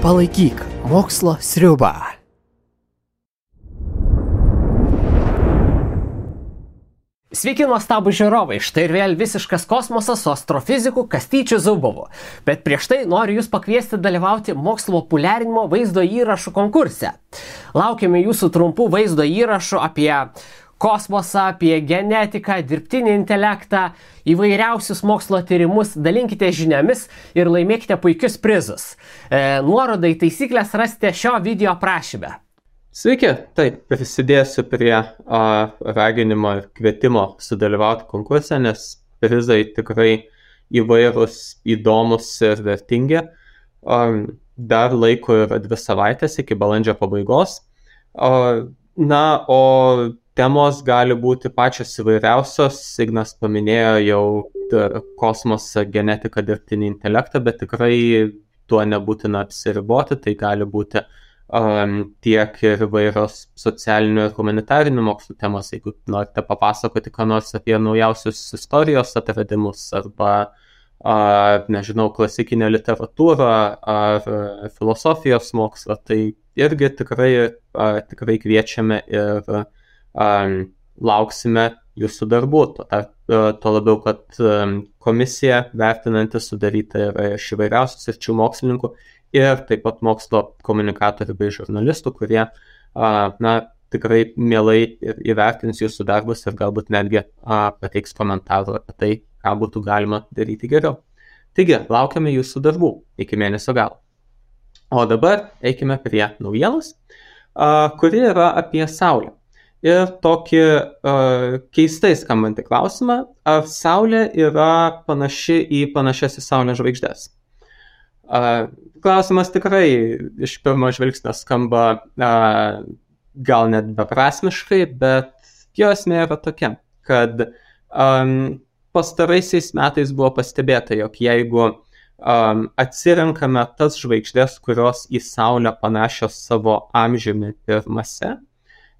Palaikyk mokslo sriubą. Sveiki nuostabų žiūrovai, štai ir vėl visiškas kosmosas su astrofiziku Kastyčiu Zubovu. Bet prieš tai noriu jūs pakviesti dalyvauti mokslo populiarinimo vaizdo įrašų konkurse. Laukiame jūsų trumpų vaizdo įrašų apie kosmosą, apie genetiką, dirbtinį intelektą, įvairiausius mokslo tyrimus, dalinkite žiniomis ir laimėkite puikius prizus. Nuorodą į taisyklės rasite šio video aprašyme. Sveiki, taip, prisidėsiu prie raginimo ir kvietimo sudalyvauti konkurse, nes prizai tikrai įvairūs, įdomus ir vertingi. Dar laiko yra 2 savaitės iki balandžio pabaigos. O temos gali būti pačios įvairiausios. Ignas paminėjo jau kosmosą, genetiką, dirbtinį intelektą, bet tikrai tuo nebūtina apsiriboti. Tai gali būti tiek ir įvairios socialinių ir humanitarinių mokslų temos, jeigu norite papasakoti ką nors apie naujausius istorijos atradimus arba, nežinau, klasikinę literatūrą ar filosofijos mokslą, tai irgi tikrai kviečiame ir lauksime jūsų darbų. Tuo labiau, kad komisija vertinanti sudaryta yra iš įvairiausių sričių mokslininkų ir taip pat mokslo komunikatorių bei žurnalistų, kurie tikrai mielai įvertins jūsų darbus ir galbūt netgi pateiks komentarų apie tai, ką būtų galima daryti geriau. Taigi, laukiame jūsų darbų iki mėnesio galo. O dabar eikime prie naujienos, kuri yra apie Saulę. Ir tokį keistai skambantį klausimą, ar Saulė yra panaši į panašias į Saulę žvaigždes. Klausimas tikrai iš pirmo žvilgsnio skamba gal net beprasmiškai, bet jo esmė yra tokia, kad pastaraisiais metais buvo pastebėta, jog jeigu atsirenkame tas žvaigždės, kurios į Saulę panašios savo amžiumi ir mase,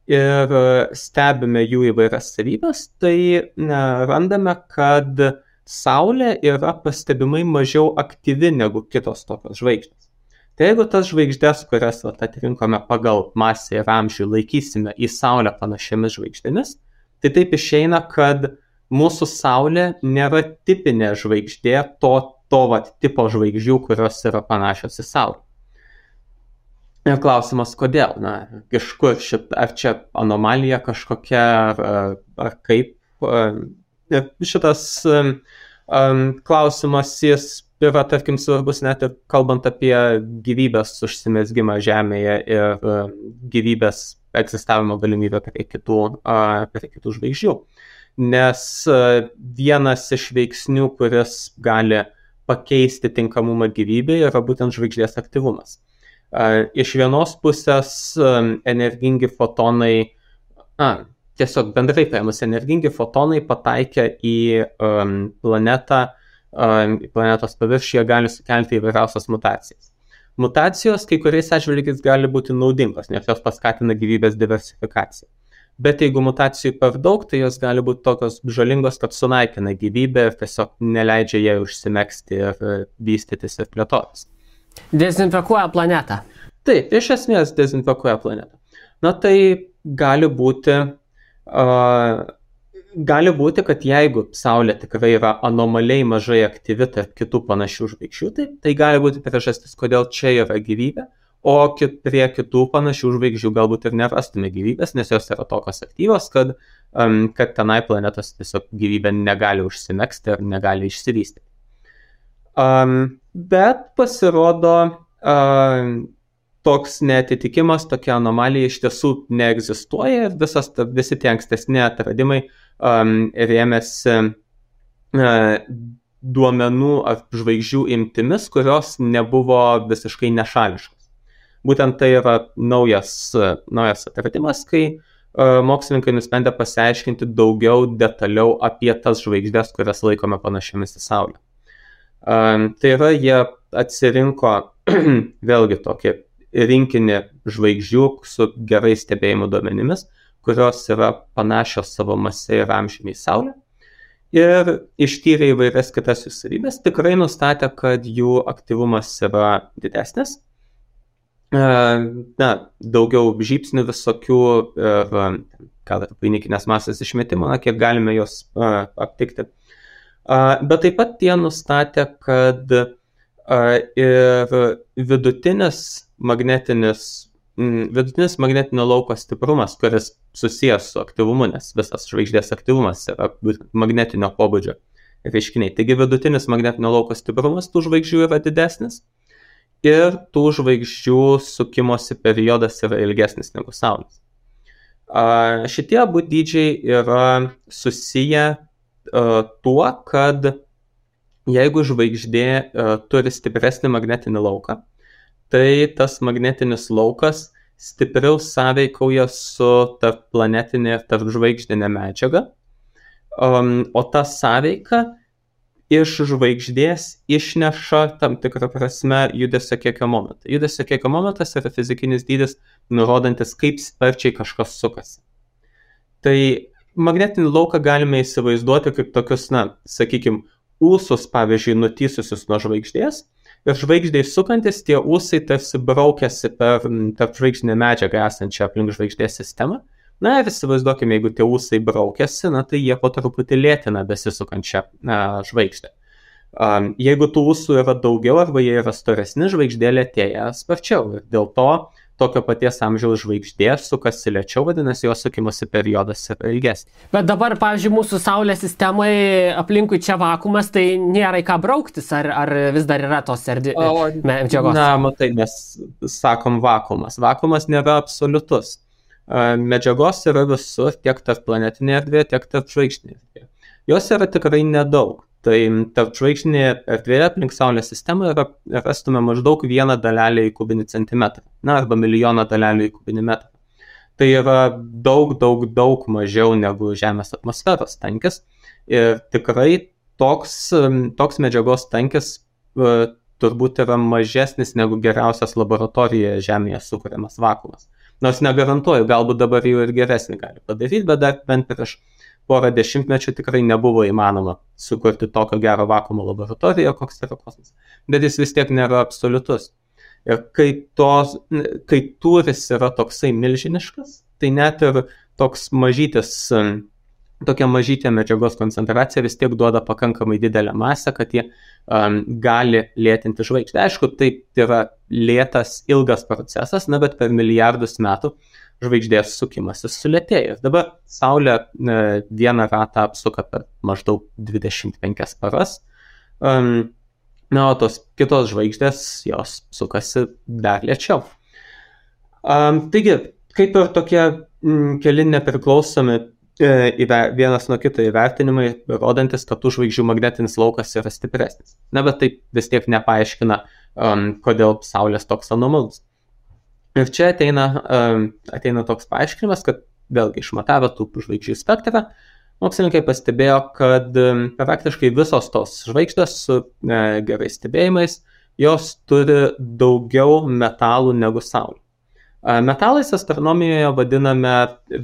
ir stebime jų įvairias savybes, tai randame, kad Saulė yra pastebimai mažiau aktyvi negu kitos tokios žvaigždės. Tai jeigu tas žvaigždės, kurias atrinkome pagal masę ir amžių, laikysime į Saulę panašiamis žvaigždėmis, tai taip išeina, kad mūsų Saulė nėra tipinė žvaigždė to tipo žvaigždžių, kurios yra panašios į Saulę. Ir klausimas, kodėl? Iš kur ar čia anomalija kažkokia, ar kaip? Šitas klausimas jis yra, tarkim, svarbus net ir kalbant apie gyvybės užsimezgimą Žemėje ir gyvybės egzistavimo galimybę prie kitų žvaigždžių. Nes vienas iš veiksnių, kuris gali pakeisti tinkamumą gyvybei, yra būtent žvaigždės aktyvumas. Iš vienos pusės energingi fotonai, tiesiog bendrai paėmus, energingi fotonai pataikę į planetą, į planetos paviršiuje gali sukelti įvairiausias mutacijas. Mutacijos kai kuriais atžvilgiais gali būti naudingos, nes jos paskatina gyvybės diversifikaciją. Bet jeigu mutacijų per daug, tai jos gali būti tokios žalingos, kad sunaikina gyvybę ir tiesiog neleidžia jai užsimegzti ir vystytis ir plėtotis. Dezinfekuoja planetą. Taip, iš esmės dezinfekuoja planetą. Tai gali būti, kad jeigu Saulė tikrai yra anomaliai mažai aktyvi tarp kitų panašių žvaigždžių, tai gali būti priežastis, kodėl čia yra gyvybė, o prie kitų panašių žvaigždžių galbūt ir nerastume gyvybės, nes jos yra tokios aktyvios, kad tenai planetos tiesiog gyvybė negali užsimegzti ir negali išsivystyti. Bet pasirodo, toks neatitikimas, tokia anomalija iš tiesų neegzistuoja ir visi tie ankstesni atradimai rėmėsi duomenų ar žvaigždžių imtimis, kurios nebuvo visiškai nešališkos. Būtent tai yra naujas atradimas, kai mokslininkai nusprendė pasiaiškinti daugiau detaliau apie tas žvaigždės, kurias laikome panašiamis į Saulę. Tai yra, jie atsirinko vėlgi tokį rinkinį žvaigždžių su gerai stebėjimo duomenimis, kurios yra panašios savo mase ir amžiumi į Saulę. Ir ištyrė įvairias kitas jų savybės, tikrai nustatė, kad jų aktyvumas yra didesnis. daugiau žybsnių visokių ir vainikinės masės išmetimo, kiek galime jos aptikti. Bet taip pat tie nustatė, kad ir vidutinis magnetinio lauko stiprumas, kuris susijęs su aktyvumu, nes visas žvaigždės aktyvumas yra magnetinio pobūdžio reiškiniai. Taigi vidutinis magnetinio lauko stiprumas tų žvaigždžių yra didesnis ir tų žvaigždžių sukimosi periodas yra ilgesnis negu Saulės. Šitie abu dydžiai yra susiję tuo, kad jeigu žvaigždė turi stipresnį magnetinį lauką, tai tas magnetinis laukas stipriau sąveikauja su tarpplanetinė ir tarpžvaigždinė medžiaga, o ta sąveika iš žvaigždės išneša tam tikrą prasme judesio kiekio momentą. Judesio kiekio momentas yra fizikinis dydis, nurodantis, kaip sparčiai kažkas sukasi. Tai magnetinį lauką galime įsivaizduoti kaip tokius, sakykime, ūsus, pavyzdžiui, nutįsusius nuo žvaigždės, ir žvaigždės sukantis tie ūsai tarsi braukiasi per tarpžvaigždinę medžiagą esančią aplink žvaigždės sistemą. Ir įsivaizduokime, jeigu tie ūsai braukiasi, tai jie po truputį lėtina besisukančią žvaigždę. Jeigu tų ūsų yra daugiau arba jie yra storesni, žvaigždė lėtėja sparčiau. Ir dėl to tokio paties amžiaus žvaigždė sukasi lėčiau, vadinasi, jos sukimosi periodas yra ilgesnis. Bet dabar, pavyzdžiui, mūsų Saulės sistemai aplinkui čia vakuumas, tai nėra į ką brauktis, ar vis dar yra tos medžiagos? Matai, mes sakom vakuumas. Vakuumas nėra absoliutus. Medžiagos yra visur, tiek tarp planetinėje erdvėje, tiek tarp žvaigždinėje erdvėje. Jos yra tikrai nedaug. Tai tarp žvaigždinėje erdvėje aplink Saulės sistemą rastume maždaug 1 dalelę į kubinį centimetrą, arba milijoną dalelių į kubinį metrą. Tai yra daug mažiau negu Žemės atmosferos tankis. Ir tikrai toks medžiagos tankis turbūt yra mažesnis negu geriausias laboratorijoje Žemėje sukuriamas vakuumas. Nors negarantuoju, galbūt dabar jau ir geresnį gali padaryti, bet dar bent prieš porą dešimtmečių tikrai nebuvo įmanoma sukurti tokio gero vakuumo laboratorijoje, koks yra kosmosas. Bet jis vis tiek nėra absoliutus. Ir kai tūris yra toksai milžiniškas, tai net ir tokia mažytė medžiagos koncentracija vis tiek duoda pakankamai didelę masę, kad jie gali lėtinti žvaigždę. Aišku, tai yra lėtas, ilgas procesas, bet per milijardus metų žvaigždės sukimasis sulėtėja. Dabar Saulė vieną ratą apsuka per maždaug 25 paras, o tos kitos žvaigždės jos sukasi dar lėčiau. Taigi, kaip ir tokie keli nepriklausomi vienas nuo kito įvertinimai, rodantis, kad tų žvaigždžių magnetinis laukas yra stipresnis. Bet tai vis tiek nepaaiškina, kodėl Saulės toks anomalus. Ir čia ateina toks paaiškinimas, kad vėlgi išmatavę tų žvaigždžių spektrą, mokslininkai pastebėjo, kad praktiškai visos tos žvaigždės su gerais stebėjimais, jos turi daugiau metalų negu Saulė. Metalais astronomijoje vadiname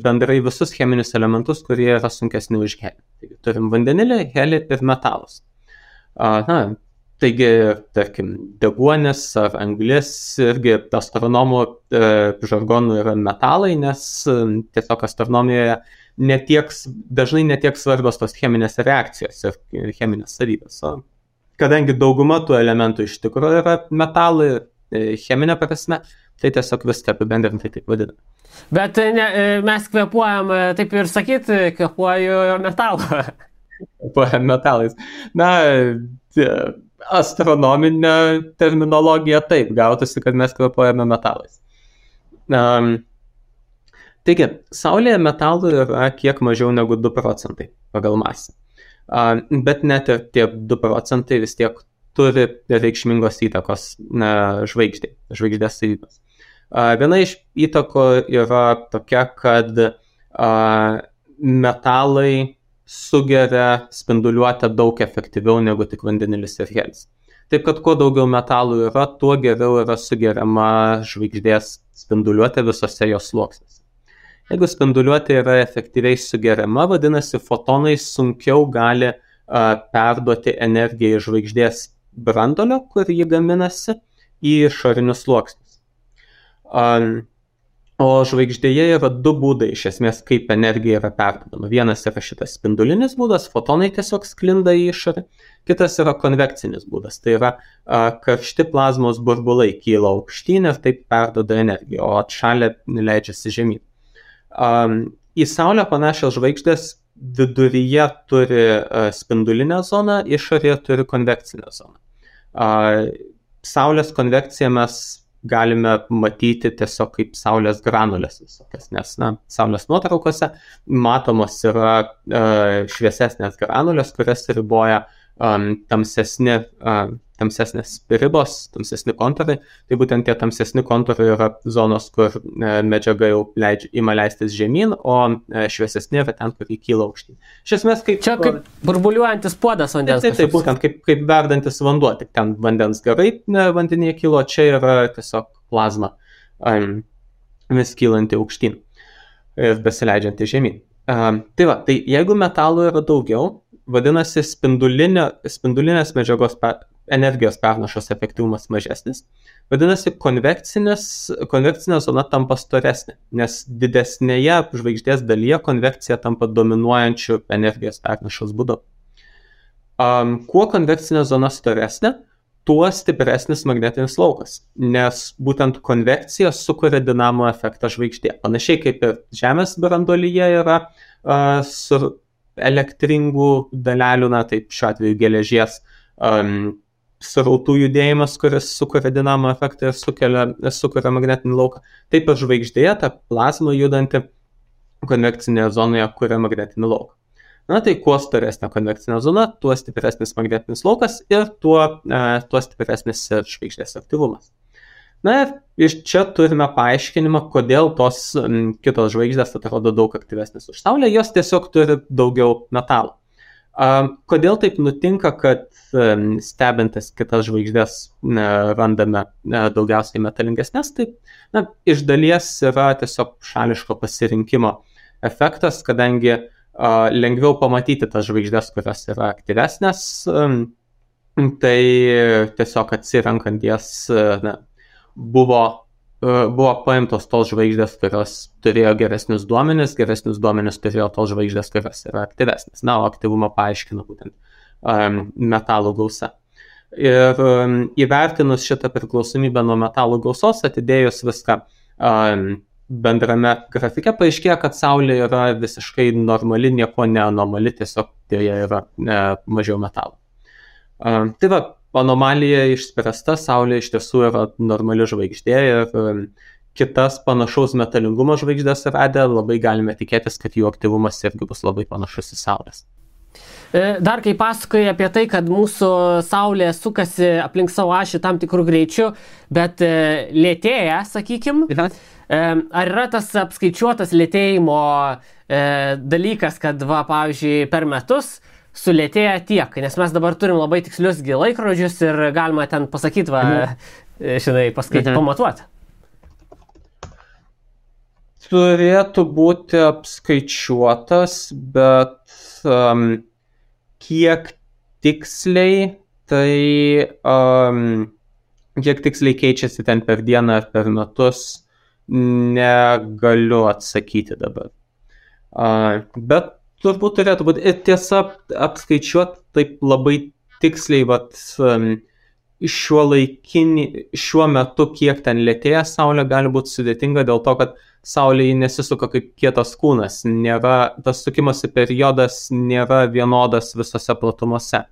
bendrai visus cheminius elementus, kurie yra sunkesni už helį. Taigi, turim vandenilį, helį ir metalus. Taigi, tarkim, deguonis ar anglis irgi astronomų žargonų yra metalai, nes tiesiog astronomijoje dažnai netiek svarbios tos cheminės reakcijos ir cheminės savybės. Kadangi dauguma tų elementų iš tikrųjų yra metalai cheminė prasme, tai tiesiog viską apibendrintai taip vadiname. Bet mes kvėpuojam, taip ir sakyt, kvėpuoju metalą. Kvėpuojam metalais. Astronominė terminologija taip, gautųsi, kad mes kvėpuojame metalais. Taigi, Saulėje metalų yra kiek mažiau negu 2 procentai pagal masę. Bet net ir tie 2 procentai vis tiek turi reikšmingos įtakos žvaigždės savybės. Viena iš įtakų yra tokia, kad metalai sugeria spinduliuotę daug efektyviau negu tik vandenilis ir helis. Taip kad kuo daugiau metalų yra, tuo geriau yra sugeriama žvaigždės spinduliuotė visose jos sluoksniuose. Jeigu spinduliuotė yra efektyviai sugeriama, vadinasi, fotonai sunkiau gali perduoti energiją iš žvaigždės branduolio, kur jį gaminasi, į išorinius sluoksnius. O žvaigždėje yra du būdai, iš esmės, kaip energija yra perdodama. Vienas yra šitas spindulinis būdas, fotonai tiesiog sklinda į išorę. Kitas yra konvekcinis būdas, tai yra karšti plazmos burbulai kyla aukštyn ir taip perdoda energiją, o atšalę leidžiasi žemyn. Į Saulę panašios žvaigždės viduryje turi spindulinę zoną, išorėje turi konvekcinę zoną. Saulės konvekciją mes galime matyti tiesiog kaip saulės granulės visokias, nes saulės nuotraukose matomos yra šviesesnės granulės, kurias riboja tamsesnės ribos, tamsesni kontūrai. Tai būtent tie tamsesni kontūrai yra zonos, kur medžiaga jau ima leistis žemyn, o šviesesni yra ten, kur įkyla aukštyn. Iš esmės, čia kaip burbuliuojantis puodas vandens. Tai būtent kaip verdantis vanduo, tik ten vandens garai vandenyje kilo, čia yra tiesiog plazma vis kylanti aukštyn ir besileidžianti žemyn. Tai jeigu metalų yra daugiau, vadinasi, spindulinės medžiagos energijos pernašos efektyvumas mažesnis. Vadinasi, konvekcinė zona tampa storesnė, nes didesnėje žvaigždės dalyje konvekcija tampa dominuojančių energijos pernašos būdu. Kuo konvekcinė zona storesnė, tuo stipresnis magnetinis laukas, nes būtent konvekcija sukuria dinamo efektą žvaigždė. Panašiai kaip ir Žemės branduolyje yra su elektringų dalelių, taip šiuo atveju geležies srautų judėjimas, kuris sukuria dinamo efektą ir sukuria magnetinį lauką. Taip ir žvaigždėje ta plazma judanti konvekcinėje zonoje kuria magnetinį lauką. Tai kuo storesnė konvekcinė zona, tuo stipresnis magnetinis laukas ir tuo stipresnis žvaigždės aktyvumas. Ir iš čia turime paaiškinimą, kodėl tos kitos žvaigždės atrodo daug aktyvesnės už Saulę, jos tiesiog turi daugiau metalų. Kodėl taip nutinka, kad stebintis kitas žvaigždės randame daugiausiai metalingesnės, tai iš dalies yra tiesiog šališko pasirinkimo efektas, kadangi lengviau pamatyti tas žvaigždės, kurios yra aktyvesnės, tai tiesiog atsirenkant jas buvo paimtos tos žvaigždės, kurios turėjo geresnius duomenis turėjo tos žvaigždės, kurios yra aktyvesnės. O aktyvumą paaiškina būtent metalų gausa. Ir įvertinus šitą priklausomybę nuo metalų gausos, atidėjus viską bendrame grafike, paaiškėjo, kad Saulė yra visiškai normali, nieko neanomali, tiesiog joje yra mažiau metalų. Anomalija išspręsta, Saulė iš tiesų yra normali žvaigždė ir kitas panašaus metalingumo žvaigždės radę, labai galime tikėtis, kad jų aktyvumas irgi bus labai panašus į Saulės. Dar kai pasakoji apie tai, kad mūsų Saulė sukasi aplink savo ašį tam tikrų greičių, bet lėtėja, sakykim, ar yra tas apskaičiuotas lėtėjimo dalykas, kad pavyzdžiui, per metus sulėtėja tiek, nes mes dabar turim labai tikslius laikrodžius ir galima ten pasakyti, pamatuoti. Turėtų būti apskaičiuotas, bet kiek tiksliai keičiasi ten per dieną ar per metus, negaliu atsakyti dabar. Bet turbūt turėtų būti. Ir tiesa, apskaičiuoti taip labai tiksliai, šiuo metu, kiek ten lėtėja Saulė, gali būti sudėtinga dėl to, kad Saulė nesisuka kaip kietas kūnas. Tas sukimosi periodas nėra vienodas visose platumose.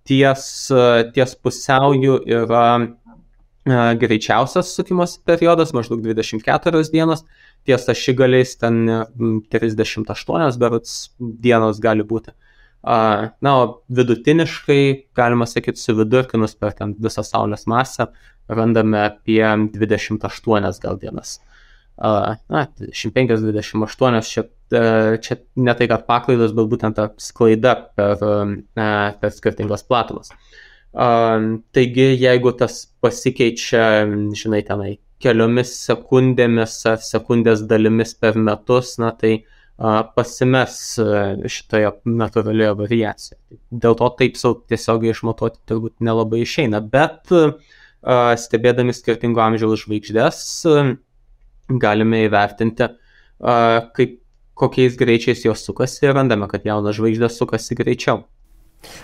Ties pusiauju yra greičiausias sukimosi periodas, maždaug 24 dienos. Ties ašigaliais ten 38 berods dienos gali būti. O vidutiniškai, galima sakyti, suvidurkinus per ten visą Saulės masę, randame apie 28 gal dienas. 25-28, čia ne tai, kad paklaidos, bet būtent ta sklaida per skirtingos platumas. Taigi, jeigu tas pasikeičia, tenai, keliomis sekundėmis ar sekundės dalimis per metus, tai pasimes šitoje natūralioje variacijoje. Dėl to taip tiesiogiai išmatuoti turbūt nelabai išeina, bet stebėdami skirtingo amžiaus žvaigždės, galime įvertinti, kokiais greičiais jos sukasi ir randame, kad jaunas žvaigždės sukasi greičiau.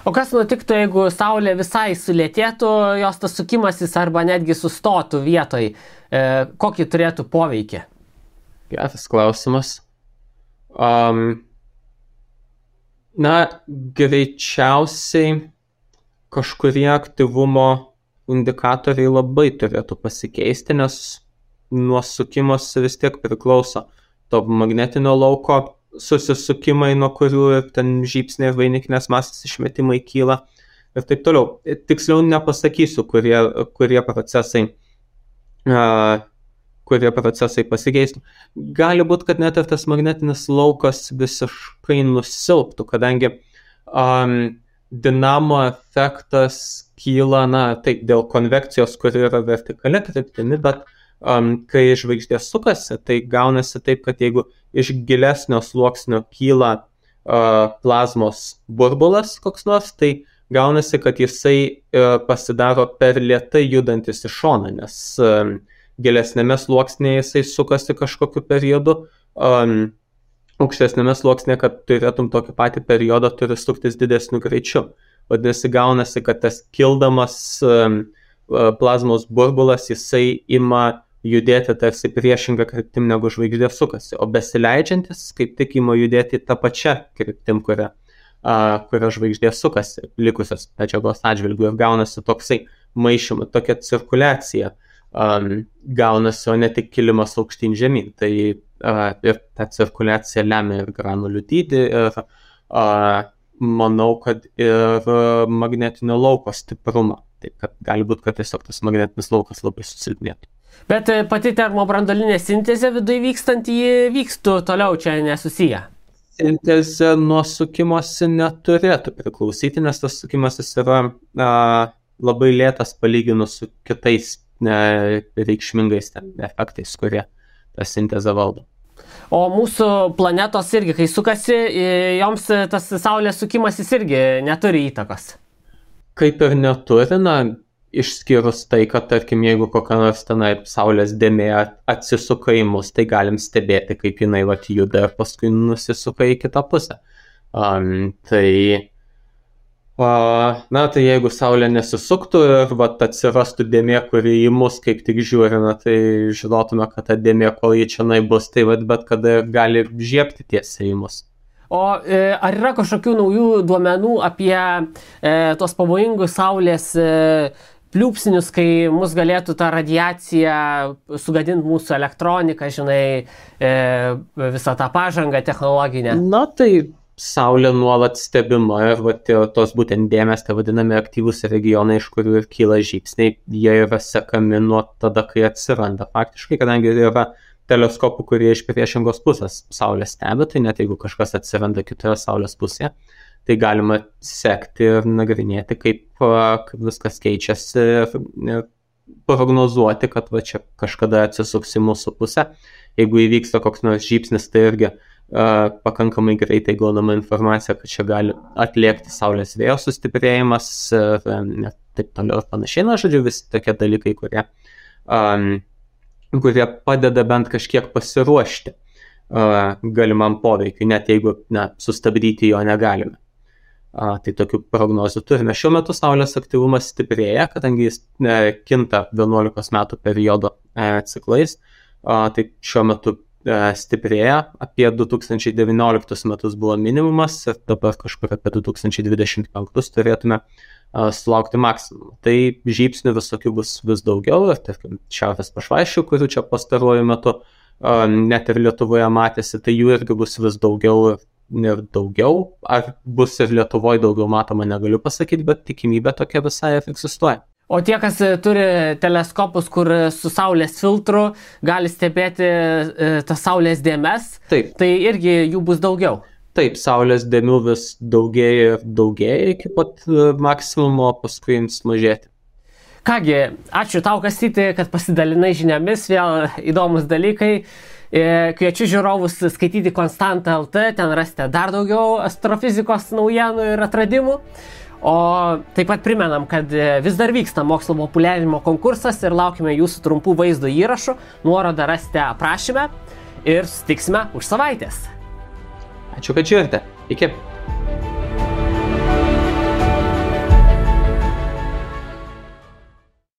O kas nutiktų, jeigu Saulė visai sulėtėtų, jos tas sukimasis arba netgi sustotų vietoj? Kokį turėtų poveikį? Geras klausimas. Greičiausiai kažkurie aktyvumo indikatoriai labai turėtų pasikeisti, nes nuo sukimos vis tiek priklauso to magnetinio lauko susisukimai, nuo kurių ir ten žybsniai ir vainikinės masės išmetimai kyla ir taip toliau. Tiksliau nepasakysiu, kurie procesai pasikeistų. Gali būti, kad net ir tas magnetinis laukas visiškai nusilptų, kadangi dinamo efektas kyla, taip, dėl konvekcijos, kuri yra vertikali kryptimi, bet kai žvaigždė sukasi, tai gaunasi taip, kad jeigu iš gilesnio sluoksnio kyla plazmos burbulas koks nors, tai gaunasi, kad jisai pasidaro per lėtai judantis į šoną, nes gilesnėme sluoksnėje jisai sukasi kažkokiu periodu, aukštesnėme sluoksnėje, kad turėtum tokį patį periodą, turi suktis didesniu greičiu. Vadinasi, gaunasi, kad tas kildamas plazmos burbulas, jisai ima judėti tarsi priešingą kryptim, negu žvaigždė sukasi, o besileidžiantis kaip tik ima judėti tą pačią kryptim, kuria žvaigždė sukasi, likusios medžiagos atžvilgių, ir gaunasi toksai maišymas, tokia cirkuliacija gaunasi, o ne tik kilimas aukštyn žemyn. Tai ir ta cirkuliacija lemia ir granulių dydį, ir manau, kad ir magnetinio lauko stiprumą. Taip, kad gali būti, kad tiesiog tas magnetinis laukas labai susilpnėtų. Bet pati termobranduolinė sintezė viduje vykstant, ji vykstų toliau, čia nesusiję. Sintezė nuo sukimosi neturėtų priklausyti, nes tas sukimasis yra labai lėtas palyginus su kitais reikšmingais efektais, kurie tą sintezę valdo. O mūsų planetos irgi, kai sukasi, joms tas Saulės sukimasis irgi neturi įtakos. Kaip ir neturi, išskyrus tai, kad, tarkim, jeigu kokia nors tenai Saulės dėmė atsisuka į mus, tai galim stebėti, kaip jinai juda ir paskui nusisuka į kitą pusę. Tai jeigu Saulė nesisuktų ir atsirastų dėmė, kuri į mus kaip tik žiūri, tai žinotume, kad ta dėmė, kol ji čia bus, tai bet kada gali žiebti tiesiai į mus. O ar yra kažkokių naujų duomenų apie tos pavojingus Saulės pliūpsnius, kai mus galėtų ta radiacija sugadinti mūsų elektroniką, visą tą pažangą technologinę? Tai Saulė nuolat stebima ir tos būtent dėmės, tai vadinami aktyvūs regionai, iš kurių ir kyla žybsniai, jie yra sekami nuo tada, kai atsiranda. Faktiškai, kadangi yra teleskopų, kurie iš priešingos pusės Saulę stebi, tai net jeigu kažkas atsiranda kitoje Saulės pusėje, tai galima sekti ir nagrinėti, kaip viskas keičiasi ir prognozuoti, kad čia kažkada atsisuks į mūsų pusę. Jeigu įvyksta koks nors žybsnis, tai irgi pakankamai greitai gaunama informacija, kad čia gali atliekti Saulės vėjo sustiprėjimas ir taip toliau ir panašiai. Žodžiu, visi tokie dalykai, kurie padeda bent kažkiek pasiruošti galimam poveikiui, net jeigu sustabdyti jo negalime. Tai tokių prognozių turime. Šiuo metu Saulės aktyvumas stiprėja, kadangi jis kinta 11 metų periodo ciklais. Tai šiuo metu stiprėja, apie 2019 metus buvo minimumas ir dabar kažkur apie 2025 turėtume sulaukti maksimumą. Tai žybsnių visokių bus vis daugiau ir tarkim šiaurės pašvaisčių, kurių čia pastaruoju metu net ir Lietuvoje matėsi, tai jų irgi bus vis daugiau ir daugiau. Ar bus ir Lietuvoje daugiau matoma, negaliu pasakyti, bet tikimybė tokia visai egzistuoja. O tie, kas turi teleskopus, kur su Saulės filtru gali stebėti tas Saulės dėmes, taip, tai irgi jų bus daugiau. Taip, Saulės dėmių vis daugėja ir daugėja iki pat maksimumo, paskui jums mažėti. Kągi, ačiū tau, Kastyti, kad pasidalinai žiniomis, vėl įdomus dalykai. Kviečiu žiūrovus skaityti Konstanta.lt, ten rasite dar daugiau astrofizikos naujienų ir atradimų. O taip pat primenam, kad vis dar vyksta mokslo populiarinimo konkursas ir laukime jūsų trumpų vaizdo įrašų. Nuorodą rasite aprašyme ir susitiksime už savaitės. Ačiū, kad žiūrite. Iki.